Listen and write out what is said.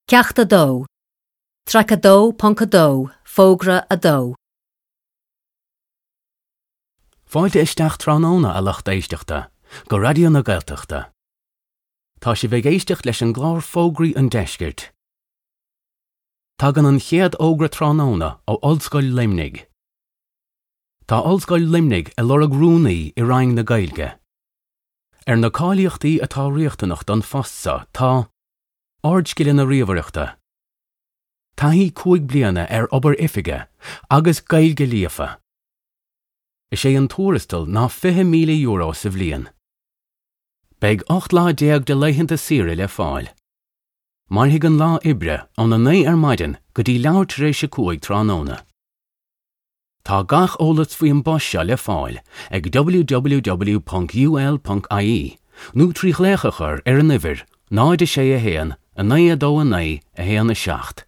Ceacht 2, Traic 2.2, Fógra 2. Fáilte isteach tráthnóna, a lucht éisteachta, go Raidió na Gaeltachta. Tá sibh ag éisteacht leis an gclár Fógraí an Deiscirt. Tagann an chéad fhógra tráthnóna ó Ollscoil Luimnigh. Tá Ollscoil Luimnigh ag lorg rúnaí i Roinn na Gaeilge. Ar na cáilíochtaí atá riachtanach don phost seo tá. Ardscileanna ríomhaireachta. Taithí 5 bliana ar obair oifige agus Gaeilge líofa. Is é an tuarastal ná €20,000 sa bhliain. Beidh 18 lá de laethanta saoire le fáil. Mairfidh an lá oibre óna 9 ar maidin go dtí leathuair tar éis a 5 tráthnóna. Tá gach eolas faoi an bpost seo le fáil ag www.ul.ie nó trí ghlaoch a chur ar an uimhir 0 6 1 9 2 9 1 7.